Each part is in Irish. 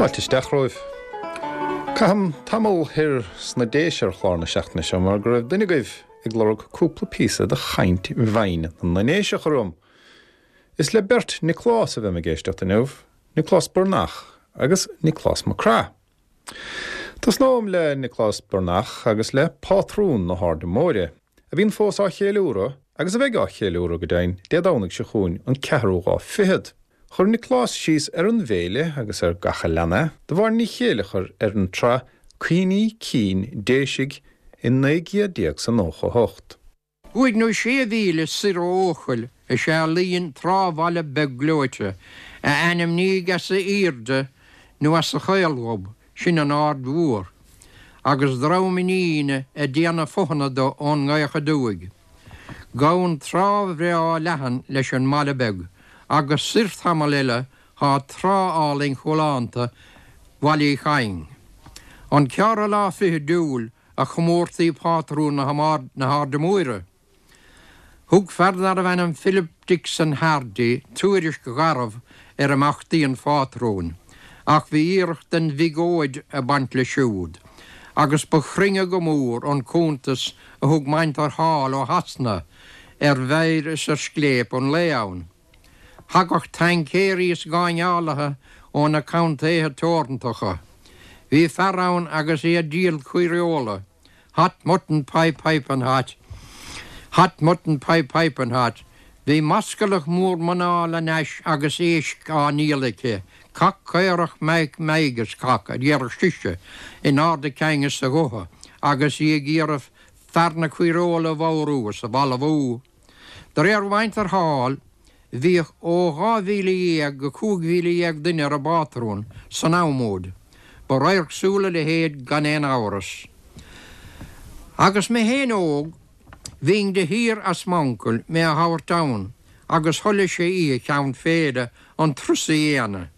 Fáilte isteach romhaibh. Caithim tamall thoir sna Déise ar chlár na seachtaine seo mar go raibh duine agaibh ag lorg cúpla píosa de chaint bhinn na nDéiseach orm. Is le beirt Nioclás a bheam ag éisteacht inniu, Nioclás Burnach agus Nioclás Mac Craith. Tosnóam le Nioclás Burnach agus le pátrún na hAirde Móire, a bhíonn fós á cheiliúradh, agus a bheidh á cheiliúradh go deimhin, Dé Domhnaigh seo chugainn, an ceathrú lá fichead. Chuir Nioclás síos ar an bhféile agus ar gach a lean é, do Mháire Ní Chéileachair ar an tsraith Cuimhní Cinn Déisigh i 1998. Cúig nó sé mhíle soir ó Eochaill is ea a luíonn trá-bhaile beag gleoite, a ainmníodh as a aoirde nó as a chaolghob, sin an Aird Mhór, agus dream iníne ag déanamh fothana do ón ngaoth aduaidh. Gabhann trá bhreá leathan leis an mbaile beag, agus soir tamall eile thá trá álainn chualánta Bhaile Uí Chadhain. An ceathrú lá fichead d'Iúil a chomórtaí pátrún na hAirde Móire. Thug fear darbh ainm Philip Dixon Hardy tuairisc gharbh ar imeachtaí an phátrúin, ach bhí iarracht den bhiogóid ag baint leis siúd, agus ba chruinne go mór an cuntas a thug Maintir Hall ó Shasana ar mheidhir is ar scléip an lae ann. Thagadh taincéirí is gáinneálaithe ó na contaetha teorantacha. Bhí fear ann agus é ag díol caoireola, hot mutton pie piping hot, hot mutton pie piping hot. Bhí mascalach mór mná lena ais agus éisc á ndíol aici, cac caorach meadhg meadhg is cac, a déarfadh sise in ard a cinn is a gutha agus í ag iarraidh fear na caoireola a bhodhrú is a bhalbhú. De réir mhuintir Hall, bhíodh ó 12,000 go 15,000 duine ar an bpátrún san am úd. Ba radharc súl a leithéid gan aon amhras. Agus mé féin óg, bhínn de shíor as m'uncail mé a thabhairt ann agus thoiligh sé oíche cheann féile an turas a dhéanamh.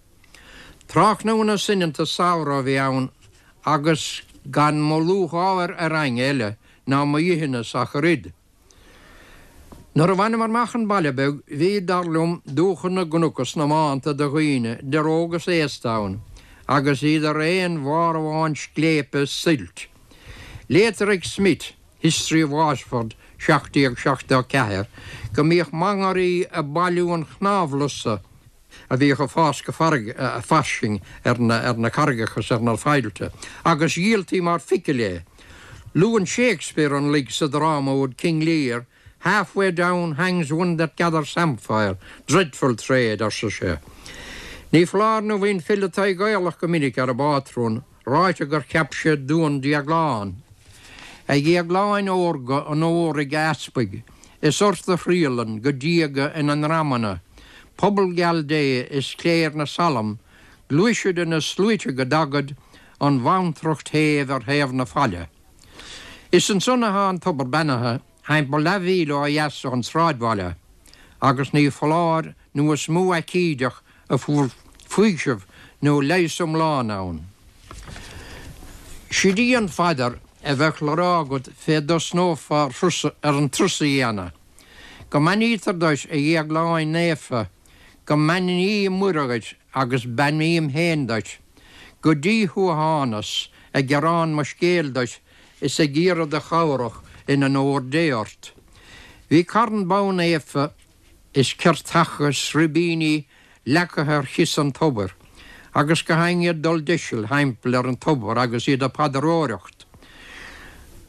Tráthnóna soineanta samhraidh a bhí ann agus gan mo lúcháir ar éinne eile ná mo dheithneas ach oiread. Nuair a bhaineamar amach an baile beag, bhí, dar liom, dúchan na gcnoc is na mbánta de dhaoine, idir óg is aosta ann, agus iad ar aon bharr amháin scléipe is suilt. Léitear ag Smith, History of Waterford, 1774, go mbíodh mangairí ag bailiú an chnámhlusa, a bhíodh ag fás go fairsing ar na carraigeacha is ar na faillte, agus dhíoltaí mar phicil é. Luann Shakespeare an luig sa dráma úd King Lear, Half way down hangs one that gathers samphire, dreadful trade, arsa sé. Ní foláir nó bhí an file Tadhg Gaelach go minic ar an bpátrún, ráite gur cheap sé duan Dhéagláin. A Dhéagláin órga onóraigh a easpaig, is ort a thriallann go diaga ina ndreamanna, pobal geal Dé is cléir na Salm, gluaisid ina sluaite go dtagaid an bhantracht shéimh ar thaobh na faille. Is ansan athá an tobar beannaithe, thimpeall leathmhíle ó dheas ón sráidbhaile, agus ní foláir nó is mó aicídeach a fuair faoiseamh nó leigheas iomlán ann. Sid í an phaidir a bheadh le rá agat fé dtosnófá ar an turas a dhéanamh. Go mbeannaítear duit, a Dhéagláin Naofa, go mbeannaí Muire dhuit agus beannaím féin duit. Go dtí thú a thánas, ag gearán mo scéil duit is ag iarraidh do chabhrach in onóir Dé ort. Bhí carn bonn naofa is ceirteacha is ribíní leagtha ar chios an tobair, agus gach éinne ag dul deiseal thimpeall ar an tobar agus iad ag paidreoireacht.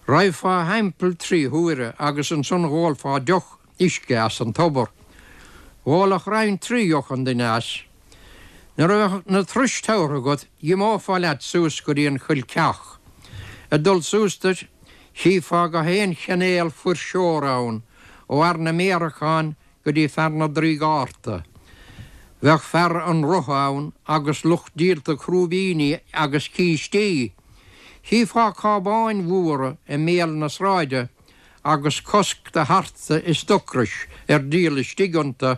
Raghfá thimpeall tri huaire agus ansan dh'ólfá deoch uisce as an tobar. Dh'ólfadh roinnt tri dheoch an duine as. Nuair a bheadh na turais tabhartha agat dh'imeofá leat suas go dtí an Choill Ceach. Ag dul suas duit, chífeá gach aon chinéal fuirseora ann, ó fhear na méaracán go dtí fear na dtrí gcárta. Bheadh fear an rotha ann agus lucht díolta crúibíní agus cístí. Chífeá cábáin mhóra i mbéal na sráide agus cosc do tharta is d'ocrais ar díol istigh iontu.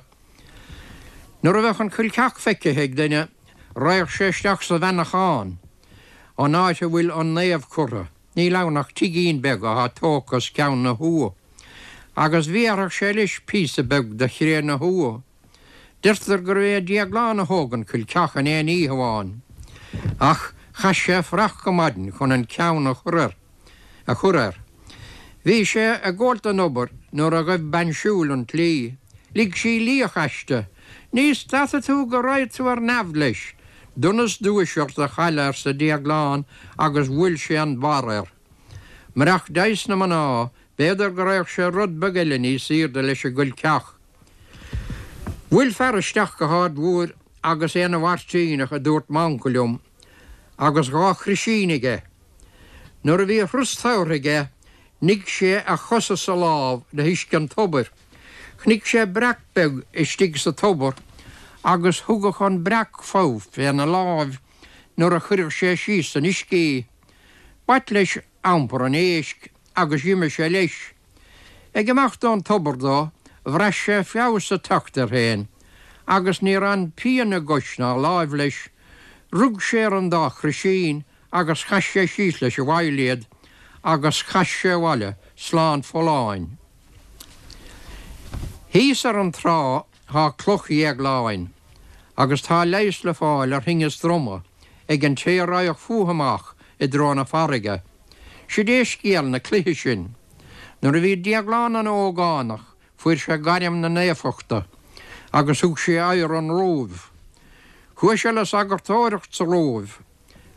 Nuair a bheadh an Choill Cheach feicthe ag duine, raghadh sé isteach sa bheannachán, an áit a bhfuil an naomh curtha. Níl ann ach tigín beag athá tógtha os ceann na tuath, agus bhéarfadh sé leis píosa beag de chré na tuath. Deirtear gurbh é Déaglán a thóg an Choill Cheach in aon oíche amháin. Ach chaith sé fuireach go maidin chun an ceann a chur air. a chur air. Bhí sé ag gabháilt don obair nuair a ghaibh bean siúil an tslí. Lig sí liach aisti. Ní stadfaidh tú go raghaidh tú ar neamh leis. Donas duais ort a chailleadh arsa Déaglán agus bhuail sé an barr air. Murach deigheas na mná, b'fhéidir go raghadh sé rud beag eile níos aoirde leis an gcoilceach. Bhuail fear isteach go hArd Mhóir agus é ina mhairtíneach a dúirt m'uncail liom, agus dha chroisín aige. Nuair a bhí a thuras tabhartha aige, nigh sé a chos is a lámh le huisce an tobair. Chonaic sé breac beag istigh sa tobar agus thugadh an breac fogha féna láimh nuair a chuireadh sé síos san uisce í. B'ait leis iompar an éisc agus d'imigh sé leis. Ag imeacht ón tobar dó, bhraith sé feabhas ag teacht air féin agus níor fhan pian i gcois ná láimh leis. Rug sé ar an dá chroisín agus chaith sé síos leis i bhfeighil iad agus chas sé abhaile slán folláin. Thíos ar an trá thá Cloch Dhéagláin agus tá leigheas le fáil ar thinneas droma ag an té a raghadh fúithi amach i dtreo na farraige. Sid é scéal na cloiche sin. Nuair a bhí Déaglán ina ógánach fuair sé gairm na naofachta agus thug sé aghaidh ar an Róimh. Chuaigh sé le sagartóireacht sa Róimh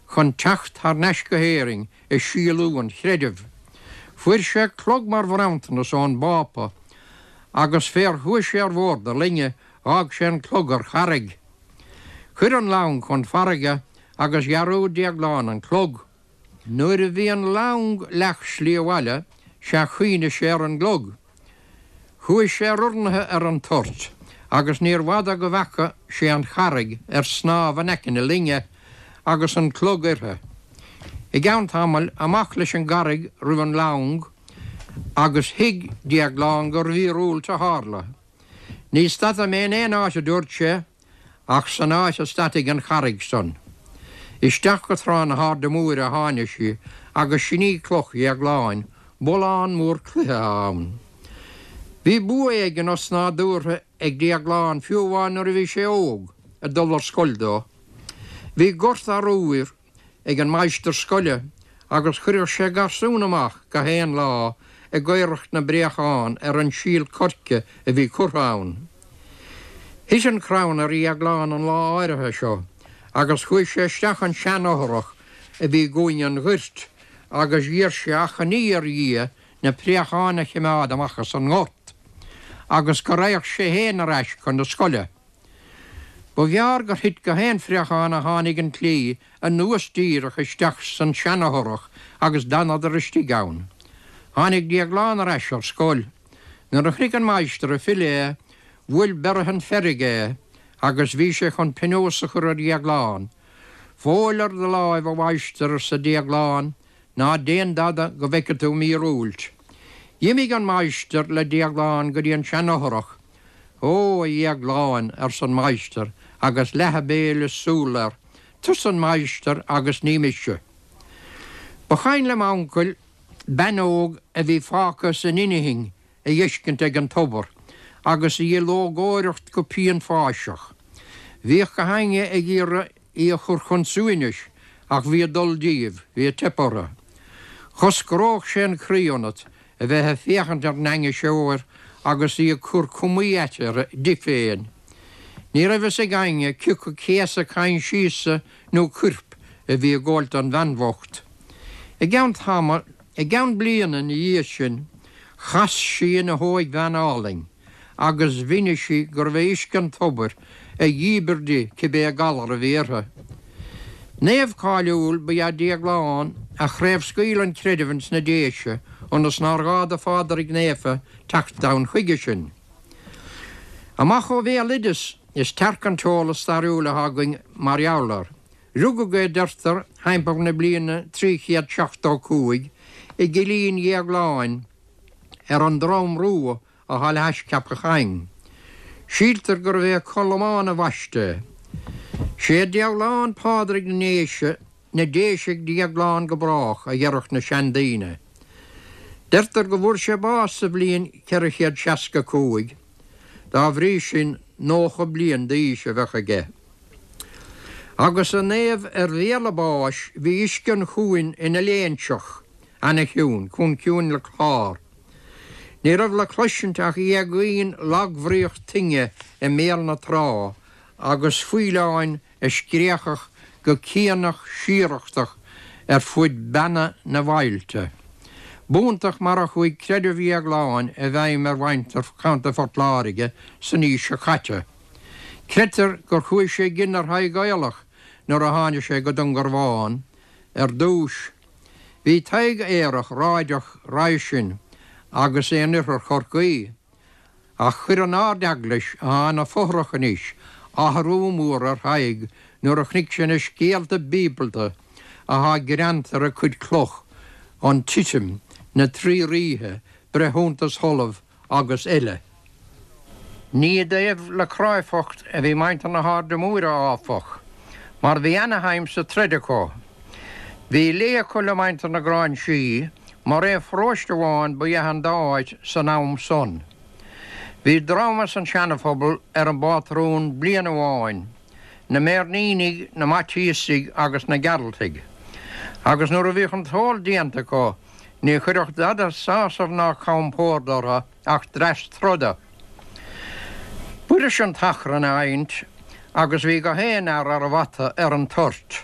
chun teacht thar n-ais go hÉirinn ag síolú an chreidimh. Fuair sé clog mar bhronntanas ón bPápa agus fér chuaigh sé ar bhord a loinge dh'fhág sé an clog ar charraig. Chuir an long chun farraige agus dhearúd Déaglán an clog. Nuair a bhí an long leath slí abhaile sea chuimhnigh sé ar an gclog. Chuaigh sé ar urnaithe ar an toirt agus níor bhfada go bhfeaca sé an charraig ar snámh in aice na loinge agus an clog uirthi. I gceann tamaill, amach leis an gcarraig roimh an long agus thuig Déaglán gur mhíorúilt a tharla. Ní stadfaidh mé in aon áit, a dúirt sé, ach san áit a stadfaidh an charraig san. Isteach go Trá na hAirde Móire a tháinig sí agus sin í Cloch Dhéagláin, bullán mór cloiche atá ann. Bhí bua éigin osnádúrtha ag Déaglán fiú amháin nuair a bhí sé óg, ag dul ar scoil dó. Bhí gort arbhair ag an máistir scoile agus chuireadh sé garsún amach gach aon lá ag aoireacht na bpréachán ar an síol coirce a bhí curtha ann. Thit an crann ar Dhéaglán an lá áirithe seo agus chuaigh sé isteach an seanfhothrach a bhí i gcúinne an ghoirt agus d'iarr sé achainí ar Dhia na préacháin a chimeád amach as an ngort agus go raghadh sé féin ar ais chun na scoile. Ba ghearr gur thit gach aon phréachán a tháinig an tslí anuas díreach isteach san seanfhothrach agus d'fhanadar istigh ann. Tháinig Déaglán ar ais ar scoil. Nuair a chonaic an máistir ag filleadh é, bhuail beireadhan feirge é agus bhí sé chun pionós a chur ar Dhéaglán. Fóill ar do láimh, a mháistir, arsa Déaglán, ná déan dada go bhfeice tú míorúilt. D'imigh an máistir le Déaglán go dtí an seanfhothrach. Ó, a Dhéagláin, arsa an máistir agus leath a béil is súl air, tusa an máistir agus ní mise. Ba chuimhin le m'uncail bean óg a bhí fágtha san inchinn a dh'fheiscint ag an tobar agus í ag lógóireacht go pianpháiseach. Bhíodh gach éinne ag iarraidh í a chur chun suaimhnis ach bhí ag dul díobh, bhí ag teip orthu. Choscródh sé an croí ionat a bheith ag féachaint ar an ainniseoir agus í ag cur cumaí aite di féin. Ní raibh fhios ag éinne cioca céasadh coinsiasa nó coirp a bhí ag gabháilt don bhean bhocht. I gceann tamaill, i gceann bliana ina dhiaidh sin, chas sí ina hóigbhean álainn agus mhínigh sí gurbh é uisce an tobair a dhíbir di cibé galar a bhí uirthi. Naomh cáiliúil ba ea Déaglán a chraobhscaoil an creideamh ins na Déise ionas nár ghá do Phádraig Naofa teacht ann chuige sin. Amach ó bhéaloideas is tearc an t-eolas stairiúil atá againn mar gheall air. Rugadh é, deirtear, thimpeall na bliana 375 i gCillín Dhéagláin ar an Drom Rua atá le hais Ceapach Choinn. Síltear gurbh é Colmán a bhaist é. Sé Déaglán Pádraig na nDéise, na Déise ag Déaglán go brách, a dheireadh na seandaoine. Deirtear go bhfuair sé bás sa bhliain 465, dá bhrí sin 90 bliain d'aois a bheadh aige. Agus an naomh ar bhéal a bháis bhí uisce an chuain ina léinseach ana-chiúin, chomh ciúin le clár. Ní raibh le cloisint ach éagaoin lagbhríoch toinne i mbéal na trá agus faoileáin a scréachach go cianach síorachtach ar fuid beanna na bhfaillte. B'iontach mar a chuaigh creideamh Dhéagláin i bhfeidhm ar mhuintir Chontae Phort Láirge san aois seo caite. Creidtear gur chuaigh sé i gcion ar Thadhg Aolach nuair a tháinig sé go Dúngarbhán ar dtúis. Bhí Tadhg aerach ráideach roimhe sin agus é in oirthear Chorcaí. Ach chuir an Ard-Eaglais, atá ina fothrach anois, athrú mór ar Thadhg nuair a chonaic sé na scéalta bíobalta atá greanta ar a cuid cloch, an Titim, na Trí Ríthe, Breithiúntas Sholaimh agus eile. Ní i dtaobh le cráifeacht a bhí muintir na hAirde Móire, áfach, mar bhí ana-shuim sa troid acu. Bhí lé acu le muintir na Gráinsí, mar aon pharóiste amháin ba ea an dá áit san am san. Bhí dream as an Seanaphobal ar an bpátrún bliain amháin, na Méirnínigh, na Maitiasaigh agus na Gearaltaigh, agus nuair a bhíodh an t-ól déanta acu ní chuirfeadh dada sásamh ná compord orthu ach dreas troda. B'fhuirist an t-achrann a adhaint agus bhí gach aon fhear ar a bhata ar an toirt.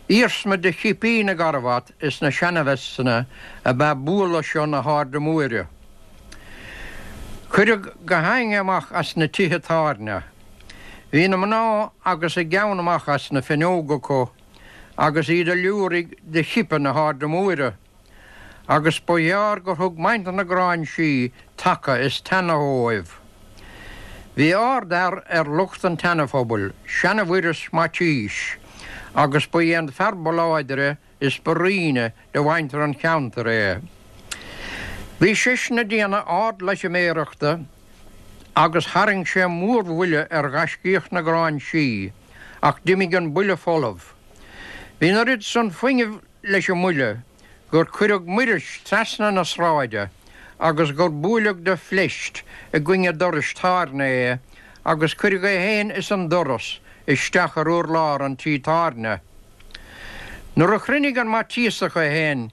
Iarsma de chipí na gcarbhat is na seana-veisteanna ab ea bualadh seo na hAirde Móire. Cuireadh gach éinne amach as na tithe tábhairne. Bhí na mná agus a gceann amach as na fuinneoga acu agus iad ag liúirigh de chipe na hAirde Móire. Agus ba ghearr gur thug muintir na Gráinsí taca is teannadh dhóibh. Bhí ard-fhear ar lucht an tSeana-Phobail, seana-Mhuiris Maitiais, agus ba é an fear ba láidre is ba righne de mhuintir an cheantair é. Bhí seisean ag déanamh ard-loitiméireachta agus tharraing sé mórbhuille ar ghaiscíoch na Gráinsí, ach d'imigh an buille folamh. Bhí an oiread san fuinnimh leis an mbuille gur cuireadh Muiris trasna na sráide agus gur buaileadh de phleist i gcoinne dorais tábhairne é agus cuireadh é féin is an doras isteach ar urlár an tí tábhairne. Nuair a chruinnigh an Maitiasach é féin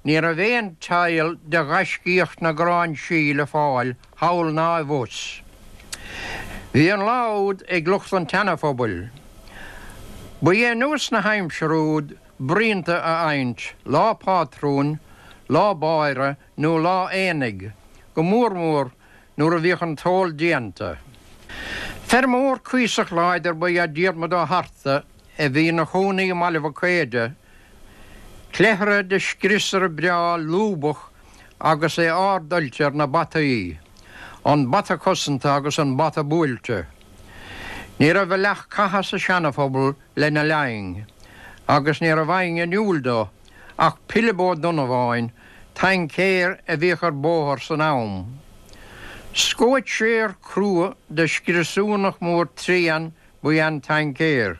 ní raibh aon tsail de ghaiscíoch na Gráinsí le fáil thall ná i bhfus. Bhí an lá úd ag lucht an tSeana-Phobail. Ba é nós na haimsire úd bruíonta a adhaint, lá pátrúin, lá báire nó lá aonaigh, go mór mór nuair a bhíodh an t-ól déanta. Feirmeoir cuíosach láidir ba ea Diarmuid Ó hArta a bhí ina chónaí i mBaile Mhic Éide, cleithire de scriosaire breá lúbach agus é ard-oilte ar na bataí, an bata cosanta agus an bata buailte. Ní raibh a leath catha sa Seana-Phobal lena linn, agus ní raibh éinne in iúl dó ach Pilib Ó Donnabháin, taincéir a bhíodh ar bóthar san am. Scóitséir crua de scriosúnach mór tréan ba ea an taincéir,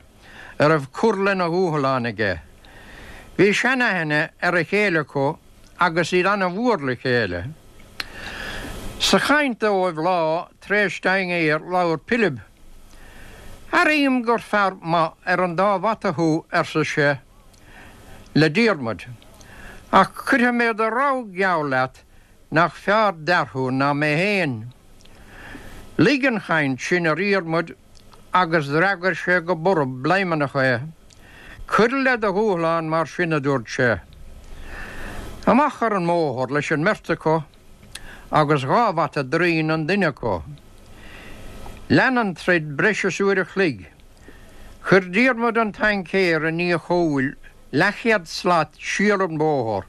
a raibh cur lena dhúshlán aige. Bhí seanaithne ar a chéile acu agus iad ana-mhór le chéile. Sa chaint dóibh lá tar éis dinnéir labhair Pilib. Airím gur fear maith ar an dá bhata thú, arsa sé le Diarmuid, ach cuirfidh mé de rogha geall leat nach fearr d'fhear thú ná mé féin. Luigh an chaint sin ar Dhiarmuid agus d'fhreagair sé go borb bladhmannach é. Cuir le do dhúshlán mar sin, a dúirt sé. Amach ar an mbóthar leis an mbeirt acu. agus dhá bhata draoin an duine acu. Lean an troid breis is uair a chloig. Chuir Diarmuid an taincéir i ndiaidh a chúil leathchéad slat siar an bóthar,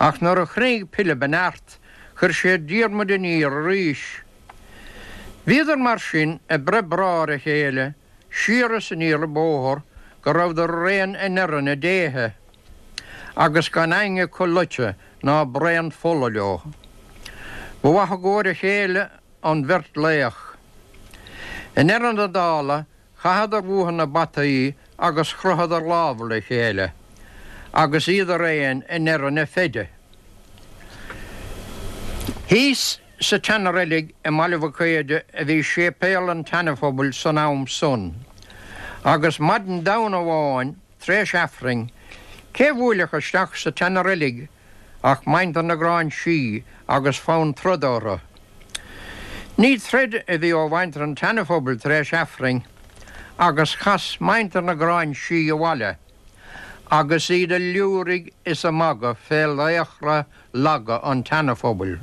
ach nuair a chruinnigh Pilib a neart chuir sé Diarmuid aniar arís. Bhíodar mar sin ag breith brá ar a chéile siar is aniar an bóthar go rabhadar araon i ndeireadh na déithe. agus gan éinne acu loite ná braon fola leo. Ba mhaith i gcomhair a chéile an bheirt laoch. I ndeireadh na dála chaitheadar uathu na bataí agus chroitheadar lámha le chéile, agus iad araon i ndeireadh na feide. Thíos sa tseana-reilig i mBaile Mhic Éide a bhí séipéal an tSeana-Phobail san am san. Agus maidin Domhnaigh amháin, tar éis Aifrinn, cé bhuailfeadh isteach sa tseana-reilig ach muintir na Gráinsí agus fonn troda orthu. Ní troid a bhí ó mhuintir an tSeana-Phobail tar éis Aifrinn agus chas muintir na Gráinsí abhaile agus iad a liúirigh is a magadh fé laochra laga an tSeana-Phobail.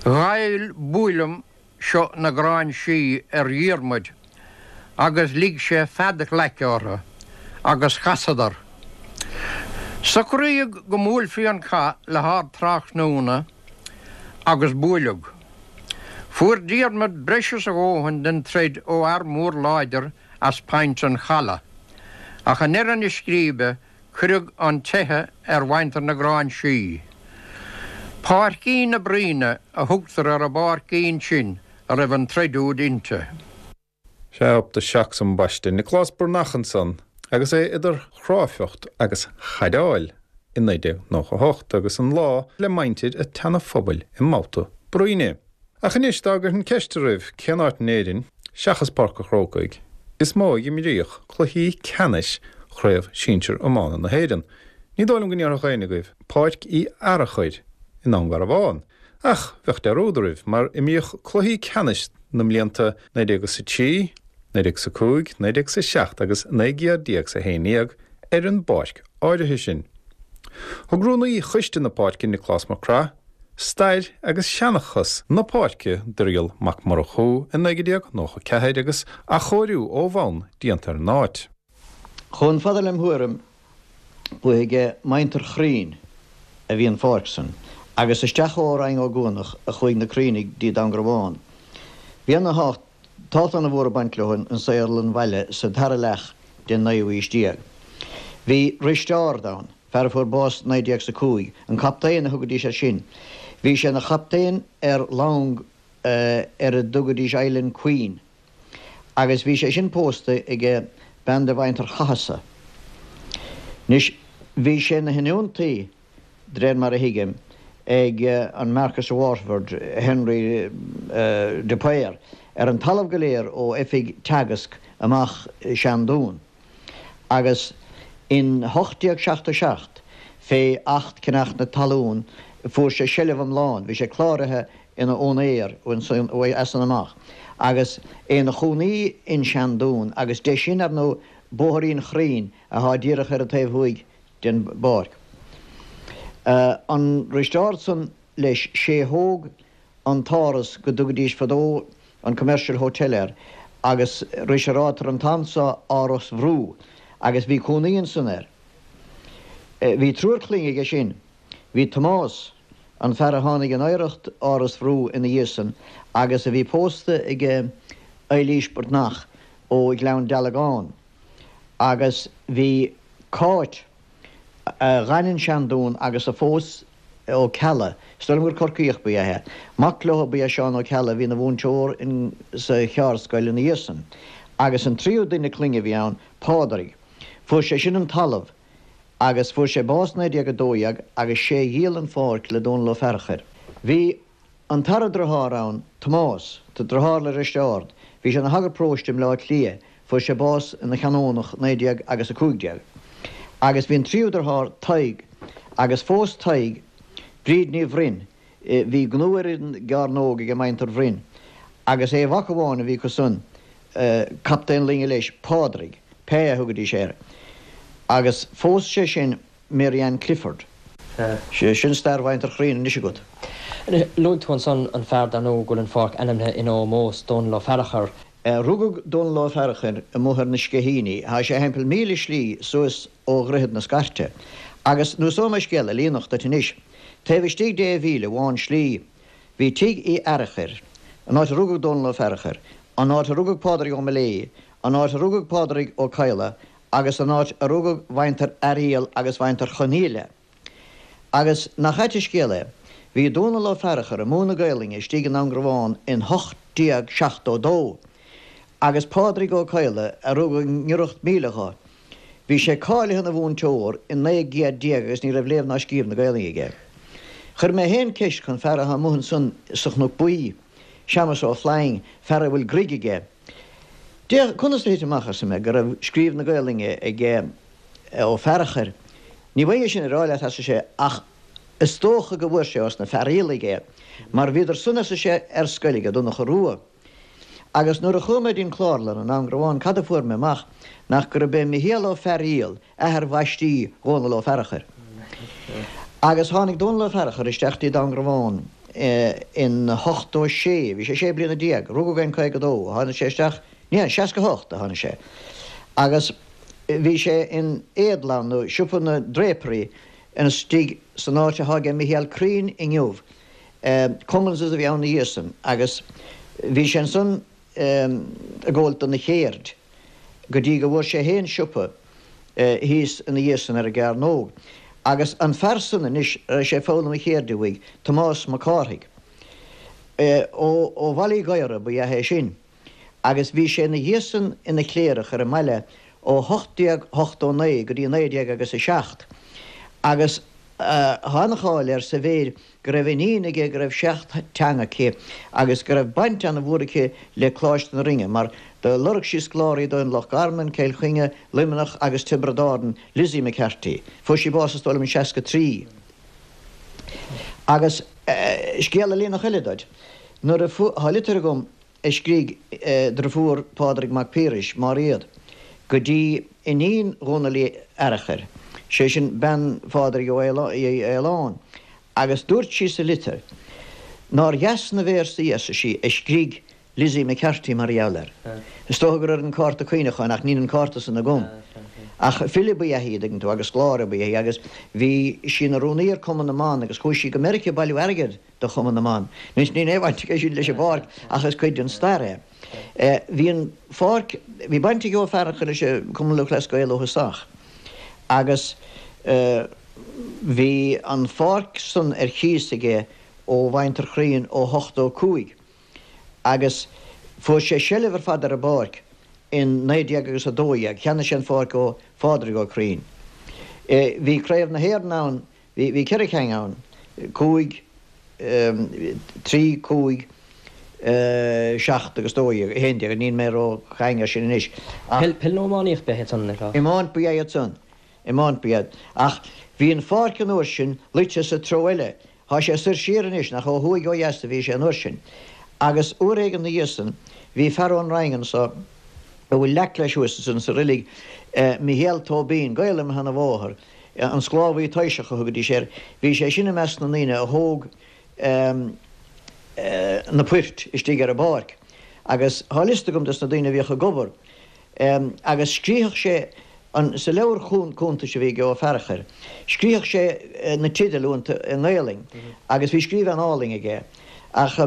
Ghoill buaileam seo na Gráinsí ar Dhiarmuid agus lig sé fead ghlaice orthu agus chasadar. Socraíodh go mbuailfí an cath le hardtráthnóna agus buaileadh. Fuair Diarmuid breis is a dhóthain den troid ó fhear mór láidir as Point an Chalaidh, ach i ndeireadh na scríbe Cuireadh an teitheadh ar mhuintir na Gráinsí. Páircín na Bruíne a thugtar ar an bpáircín sin a raibh an troid úd inti. Sea, up the Shocks ambaiste, Nioclás Breathnach ansan agus é idir chráifeacht agus chaideáil i 1998 agus an lá le muintir a' tSeana-Phobail i mbabhta bruíne. Ach anois, dá gcuirfinn ceist oraibh cén áit in Éirinn, seachas Páirc a' Chrócaigh, is mó a imríodh cluichí ceannais Chraobh Sinsir Iomána na hÉireann, ní dóigh liom go ndéarfadh éinne agaibh Páirc Uí Fhearachair i nDún Garbhán. Ach bheadh dearúd oraibh, mar imríodh cluichí ceannais na mblianta 1903, 1905, 1907 agus 1911 ar an bpáirc áirithe sin. Thug rúnaí choiste na páirce, Nioclás Mac Craith, Stair agus seanchas na páirce d'Irial Mac Murchú i 1994 agus athchóiriú ó bhonn déanta ar an áit. Chomh fada lem thuairim, ba aige muintir Chroinn a bhí an pháirc san, agus isteach ó Rinn Ó gCuanach a chuaigh na Croinnigh dtí Dún Garbhán. Bhí ana thábhacht ana mhór ag baint leo in saol an bhaile sa dara leath den naoú aois déag. Bhí Risteárd ann, fear a fuair bás 1905, an captaen a thugaidís air sin. Bhí sé ina chaptaen ar long ar a dtugaidís Island Queen agus bhí sé sin pósta aige bean de mhuintir Chathasaigh. Anois, bhí sé ina thionóntaí, de réir mar a thuigim, ag an Marquess of Waterford, Henry de Paor, ar an talamh go léir ó oifig Teagasc amach Seandún. Agus in 1877, fé Acht Ceannach na Talún, fuair sé seilbh iomlán, bhí sé cláraithe ina úinéir as san amach, agus é ina chónaí in Seandún, agus de sin, ar ndóigh, Bóthairín Chroinn, athá díreach ar an taobh thuaidh den bpáirc. An Risteárd san, leis, sé thóg an t-áras go dtugaidís fadó an Commercial Hotel air agus ris a ráitear an t-am so Áras Bhrú agus bhí cónaí ansan air. Bhí triúr clainne aige sin. Bhí Tomás, an fear a tháinig in oidhreacht Áras Bhrú ina dhiaidh san agus a bhí pósta aige Eilís Breatnach ó Ghleann Dealgán agus bhí Cáit, a dh'fhan in Seandún agus a phós Ó Ceallaigh, is dóigh liom gur Corcaíoch ba ea é. Mac leo ba ea Seán Ó Ceallaigh a bhí ina mhúinteoir in sa Cheárdscoil ina dhiaidh san. Agus an tríú duine clainne a bhí ann, Pádraig. Fuair sé sin an talamh agus fuair sé bás 1912 agus sé a dhíol an pháirc le Dónal Ó Fearachair. Bhí An tara driotháir ann, Tomás, driotháir le Risteárd, bhí sé ina shagart paróiste i mBleá Cliath, fuair sé bás ina chanónach 19 agus 15. Agus bhí an tríú driotháir, Tadhg, agus phós Tadhg Bríd Ní Bhroin, bhí gnó ar an gCearnóg age muintir Bhroin, agus aon mhac amháin a bhí acu san, captaen loinge leis, Pádraig, Pé a thugaidís air, agus phós sé sin Mary Ann Clifford. Sin stair mhuintir Chroinn anois agat. Luaigh tú ansan an fear dar ndóigh go bhfuil an pháirc ainmnithe ina ómós, Dónal Ó Fearachair. Rugadh Dónal Ó Fearachair amuigh ar na Sceithíní. Thá sé thimpeall míle slí suas ó Dhroichead na Scairte. Agus neosóidh mé scéal ealaíonach duit anois. Taobh istigh de mhíle amháin slí, bhí tigh Uí Fhearachair, an áit a rugadh Dónal Ó Fearachair, an áit a rugadh Pádraig Ó Miléadha, an áit a rugadh Pádraig Ó Cadhla, agus an áit a rugadh mhuintir Fhearghaíl agus mhuintir Chonaola. Agus nach ait an scéal é, bhí Dónall Ó Fearachair ag múineadh Gaelainne istigh i nDún Garbhán in 1872, agus Pádraig Ó Cadhla, a rugadh i ngiorracht míle dho, bhí sé cáilithe ina mhúinteoir in 19 gcéad agus ní raibh léamh ná scríobh na Gaelainne aige. Chuir mé féin ceist chun fear athá amuigh ansan sa Chnoc Buí, Seamus Ó Floinn, fear a bhfuil gruig aige. D'fhéach, conas a thit amach, arsa mé, go raibh scríobh na Gaolainne ag Ó Fearachair. Ní bhfaighinn é sin a rá leat, arsa sé, ach is dócha go bhfuair sé ós na Fearaíolaigh é, mar bhíodar san, arsa sé, ar scoil aige Donncha Rua. Agus nuair a chuaigh mé dtí'n Chlárlann i nDún Garbhán cad a fuair mé amach nach gurb é Michéal Ó Fearaíol athair bhaistí Dhónaill Ó Fearachair. Agus tháinig Dónall Ó Fearachair isteach dtí Dún Garbhán in 86, bhí sé 16 bliana, rugadh é in 52, tháinig sé isteach, ní, 68 a tháinig sé. Agus bhí sé in éadlann nó siopa na ndrapery istigh san áit athá aige Michéal Crean inniu, Cummins' a bhí ann ina dhiaidh san agus bhí sé ansan ag gabháilt dona chéird go dtí go bhfuair sé fhéin siopa thíos ina dhiaidh san ar an gCearnóg. Agus an fear san anois a raibh sé ag foghlaim a chéirde uaidh, Tomás Mac Cárthaigh, ó Bhaile Uí Ghadhra ba ea é sin agus bhí sé ina dhiaidh san ina chléireach ar an mbaile ó 1889 go dtí 19 agus a 7 agus tá an-cháil air sa mhéid go raibh iníon aige go raibh seacht teanga aici agus go raibh baint ana-mhór aici le Coláiste na Rinne mar do lorg sí scoláirí dó in Loch Garman, Cill Chainnigh, Luimneach agus Tiobraid Árann, Lizzie McCarthy. Fuair sí bás is dóigh liom in 63. Agus scéal ealaíonach eile duit. Nuair a fuair, tá litir agam a scrígh driofúr Phádraig Mac Piarais, Máiréad, go dtí iníon Dhónaill Uí Fhearachair, sé sin bean Phádraig Uí Fhaoláin, agus dúirt sí sa litir nár dheas na véarsaí, arsa sí, a scrígh Lizzie McCarthy mar gheall air. Is dócha gur ar an cárta cuimhneacháin, ach níl an cárta san agam. Ach file ba ea í, an dtuigeann tú, agus scoláire ba ea í, agus bhí sí ina rúnaí ar Cumann na mBan agus chuaigh sí go Meiriceá ag bailiú airgid do Chumann na mBan. Anois níl aon bhaint aige sin leis an bpáirc ach is cuid den stair é. Bhí an pháirc, bhí baint ag Ó Fearchair leis an Cumann Lúthchleas Gael ó thosach agus bhí an pháirc san ar chíos aige ó Mhuintir Chroínn ó 85 agus fuair sé seilbh ar fad ar an bpáirc in 19 agus 12. Cheannaigh sé an pháirc ó Phádraig Ó Croínn. Bhí Craobh na hÉireann ann Bhí ceithre cheann ann, cúig, trí, cúig, seacht agus 12, 11, níl mé ró-chaing air sin anois ach. Peil nó iománaíocht ba ea iad san, ar fad? Iomáint ba ea iad san, iomáint ba ea. Ach bhí an pháirc an uair sin luite sa treo eile, thá sé soir siar anois, nach ó thuaidh ó dheas a bhí sé an uair sin. Agus uair éigin 'na dhiaidh san, bhí fear ón Rinn anso, a bhfuil leac leis thuas ansan sa roilig, Michéal Tóibín, gaol le mo sheana-mháthair, An sclábhaí taoiseach a thugaidís air. Bhí sé sin i measc na ndaoine a thóg na poirt istigh ar an bpáirc. Agus thá liosta agam des na daoine a bhíodh ag obair. Agus scríothadh sé an, sa leabhar cuntais a bhí ag Ó Fearachair, scríothadh sé na teidil iontu i nGaelainn agus bhí scríobh an-álainn aige. Ach.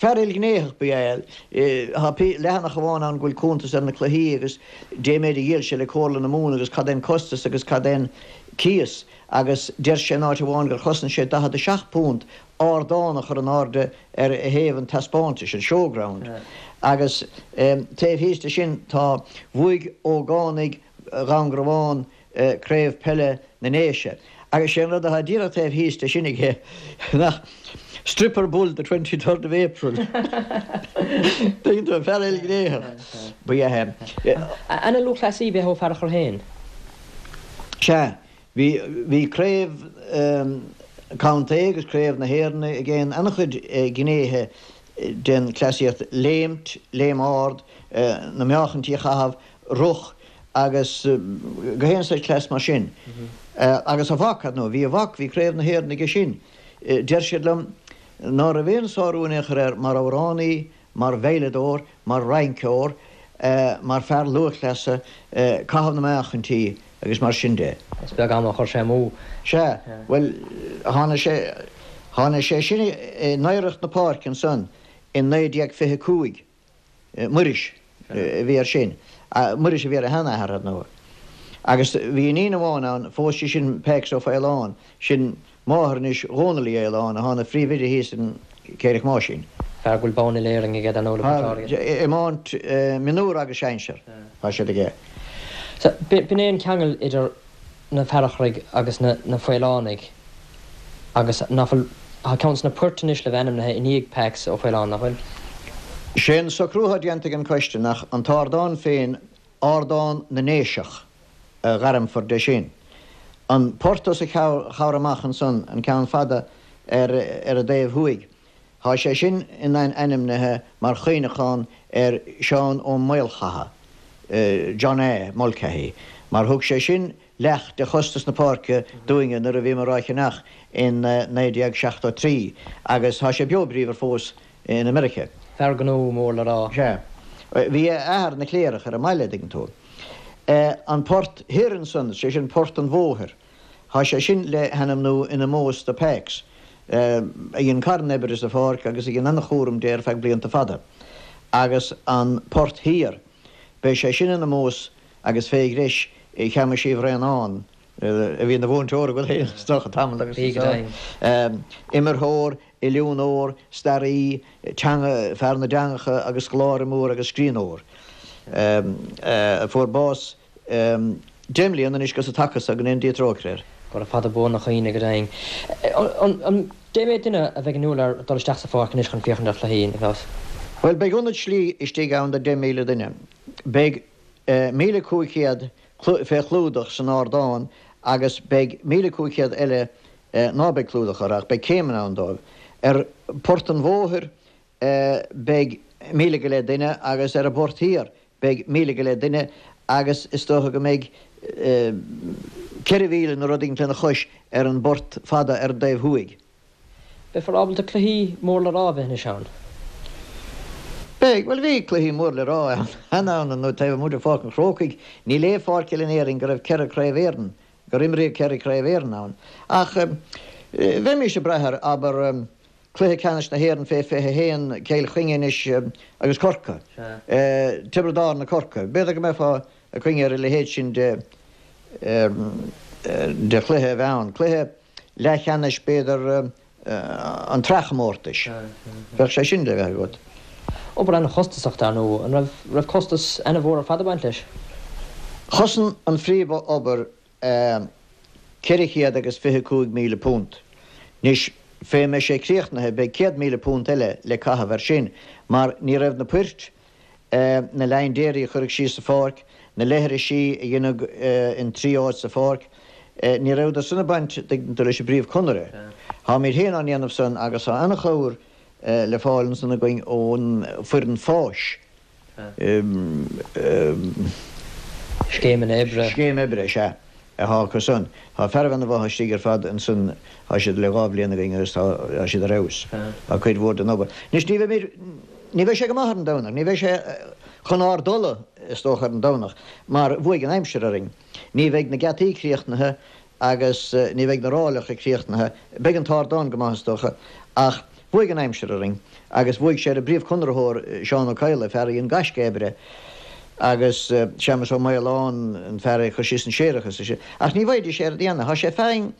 Fear ilghnéitheach ba ea é. Tá leathanach amháin ann go bhfuil cuntas ar na cluichí agus dé méid a dhíol sé le Comhairle na Mumhan agus cad é an costas agus cad é an cíos agus deir sé in áit amháin gur chosain sé £47 ardán a chur in airde ar thaobh an taispeántais, an showground. Agus taobh thíos de sin tá Bhuaigh ógánaigh Dhún Garbhán Craobh Peile na nDéise. Agus sé an rud atá díreach taobh thíos de sin aige nach Stripper Bull the 23rd of April. Tuigeann tú, fear ilghnéitheach ba ea é. Ana lúthchleasaí ba ea Ó Fearachair féin. Sea, bhí, bhí craobh contae agus craobh na hÉireann aige in an-chuid gnéithe den chleasaíocht, léimt, léim ard, na meáchaintí a chaitheamh, roth agus gach aon saghas cleas mar sin. Agus a mhac, ar ndóigh, bhí a mhac, bhí Craobh na hÉireann aige sin. Deir siad liom ná raibh aon sárú in aon chor air mar amhránaí, mar veidhleadóir, mar rinceoir, mar fear lúthchleasa, caitheamh na meáchaintí agus mar sin de. Is beag am a chuir sé amú. Sea, bhuel, tháinig sé, tháinig sé sin in oidhreacht na páirce ansan in 1925. Muiris a bhí air sin. Muiris a bhí ar a sheanathair, ar ndóigh. Agus bhí iníon amháin ann, phós sí sin Pécs Ó Faoláin, sin máthair anois Dhónaill Uí Fhaoláin, athá ina phríomhoide thíos in Céireach Máisín. Fear go bhfuil bonn uile-Éireann aige, dar ndóigh, le Port Láirge. Iomáint mionúr agus sinsear, tá siad aige. Sea, b'in é an ceangal idir na Fearcharaigh agus na Faolánaigh agus nach bhfuil, tá ceann de na poirt anois le bheith ainmnithe i ndiaidh Pax Ó Faoláin, nach bhfuil? Sé an socrú atá déanta ag an coiste nach an t-ardán féin, Ardán na nDéiseach a ghairmfear de sin. An port os a chomhair amach ansan, an ceann fada ar an dtaobh thuaidh, Tá sé sin ainmnithe mar chuimhneachán ar Sheán Ó Maolchatha, John A. Mulcahy, mar thug sé sin leath de chostas na páirce dúinne nuair a bhíomar á cheannach in 1973 agus tá sé beo bríomhar fós in America. Fear gnó mór le rá. Sea. Bhí a athair ina chléireach ar an mbaile, dtuigeann tú. An port thoir ansan, sé sin Port an Bhóthair, Tá sé sin le hainmniú in omós do Pax, a dhein carn oibre sa pháirc agus a dhein an-chúram de ar feadh blianta fada. Agus an Port Thiar, beidh sé sin in omós agus fé ghreis Sheamais Uí Bhraonáin, a bhí ina mhúinteoir agat féin is dócha tamall agus Bhí, go deimhin. Imirtheoir, oiliúnóir, staraí, teanga, fear na dteangacha agus scoláire mór agus scríbhneoir, a fuair bás 10 mbliana anois gus an taca so, go ndéana Dia trócaire air. Gura fada buan a chuimhne, go deimhin. An dé mhéad duine a bheidh inniúil ar dul isteach sa pháirc anois chun féachaint ar chluichí, Nioclás? Bhuel, beidh ionad slí istigh ann do 10,000 duine. Beidh 1,500 fé chlúdach san ardán agus beidh 1,500 eile ná beidh clúdach orthu ach beidh céimeanna ann dóibh. Ar Phort an Bhóthair beidh 1,000 go leith duine agus ar an bPort Thiar Beidh 1,000 go leith duine agus is dócha go mbeidh 4,000 nó rud éigin lena chois ar an bport fada ar an dtaobh thuaidh. Beifear ábalta cluichí mór le rá a bheith anois ann. Beidh. Bhuel, bhí cluichí mór le rá cheana ann nó taobh amuigh de Pháirc an Chrócaigh, níl aon pháirc eile in Éirinn go raibh ceithre Craobh Éireann, gur imríodh ceithre Craobh Éireann ann. Ach bheimis ag brath ar, abair, Cluiche Ceannais na hÉireann fé 21, Cill Chainnigh anois agus Corcaigh. Tiobraid Árann, Corcaigh. B'fhéidir go mbeifeá ag cuimhneamh ar a leithéid sin de de chluiche a bheith ann. Cluiche leathcheannais b'fhéidir an tsraithchomórtais. Bheadh sé sin le bheith agat. Obair an-chostasach dar ndóigh. An raibh raibh costas ana-mhór ar fad ag baint leis? Chosain an phríomh-obair 400 agus £25,000. Anois, fé mbeidh sé críochnaithe, beidh £100,000 eile le caitheamh air sin, mar ní raibh na poirt, na laindéirí a cuireadh síos sa pháirc, na leithrisí a deineadh in 3 áit sa pháirc, ní rabhadar san ag baint, tuigeann tú, leis an bpríomh-chonaire. Táimid féin á ndéanamh san agus tá an-chabhair le fáil ansan againn ón foireann fáis. Scéimeanna oibre. Scéim oibre, sea, atá acu san. Tá fearaibh ana mhaith istigh ar fad ansan, tá siad le dhá bhliain againn agus tá siad ar fheabhas. Tá cuid mhór den obair. Anois ní bheimid, ní bheidh sé go maith ar an Domhnach, ní bheidh sé chun ár dtola is dócha ar an Domhnach mar bhuaigh an aimsir orainn. Ní bheidh na geataí críochnaithe agus ní bheidh na ráileacha críochnaithe. Beidh an t-ardán go maith is dócha, ach bhuaigh an aimsir orainn agus bhuaigh sé ar an bpríomhchonraitheoir, Seán Ó Cadhla, fear a dhein gaisce oibre, agus Séamus Ó Maoláin, an fear a chuir síos an séarachas. Ach ní bhfaighidís é ar déanamh. Tá sé feadhain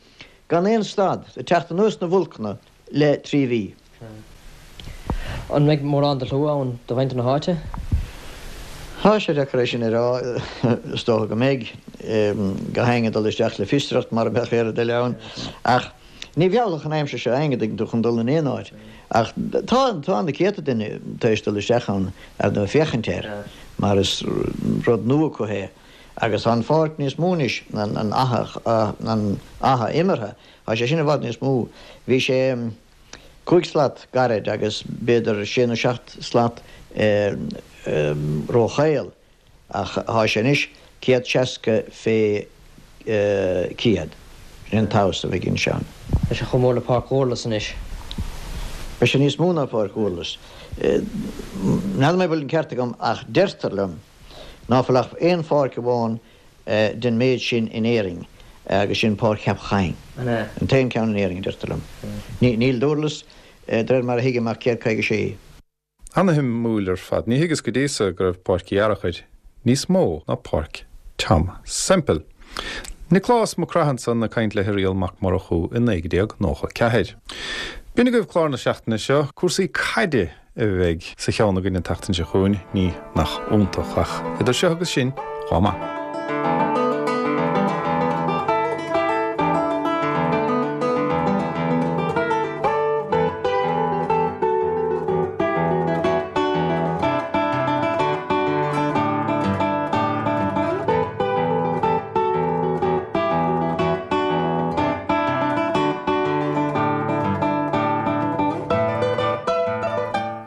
gan aon stad, ag teacht anuas na bhfolcanna le 3 mhí. An mbeidh mórán de shlua ann do mhuintir na háite? Tá sé deacair é sin a rá. Is dócha go mbeidh. Gach éinne ag dul isteach le fiosracht mar a bheadh aon rud eile ann. Ach ní mheallfadh an aimsir seo éinne, dtuigeann tú, chun dul in aon áit. Ach tá, tá na céadta duine tar éis dul isteach ann ar ndóigh féachaint air mar is rud nua acu é. Agus tá an pháirc níos mó anois, an faiche, an faiche imeartha, tá sé sin i bhfad níos mó. Bhí sé. 5 slat gairid agus b'fhéidir sé nó 7 slat róchaol, ach thá sé anois 160 fé 100. Sin an tomhas a bheidh ansin. Beidh sé chomh mór le Páirc Dhúrlas anois. Beidh sé níos mó ná Páirc Dhúrlas. N'fheadar mé bhfuil an ceart agam ach deirtear liom ná fuil ach aon pháirc amháin den méid sin in Éirinn agus sin Páirc Cheapach Choinn. An t-aon ceann in Éirinn, a deirtear liom. Níl Dúrlas, de réir mar a thuigim, ach 156. Ana-shuimiúil ar fad. Ní thuigeas go dtí so go raibh Páirc Uí Fhearachair níos mó ná Páirc Tom Semple. Nioclás Mac Craith ansan ag caint le hIrial Mac Murchú i 1994. B'in agaibh clár na seachtaine seo, cúrsaí caide a bheidh sa cheann againn an tseachtain seo chugainn, ní nach iontach, ach idir seo agus sin, chomh maith.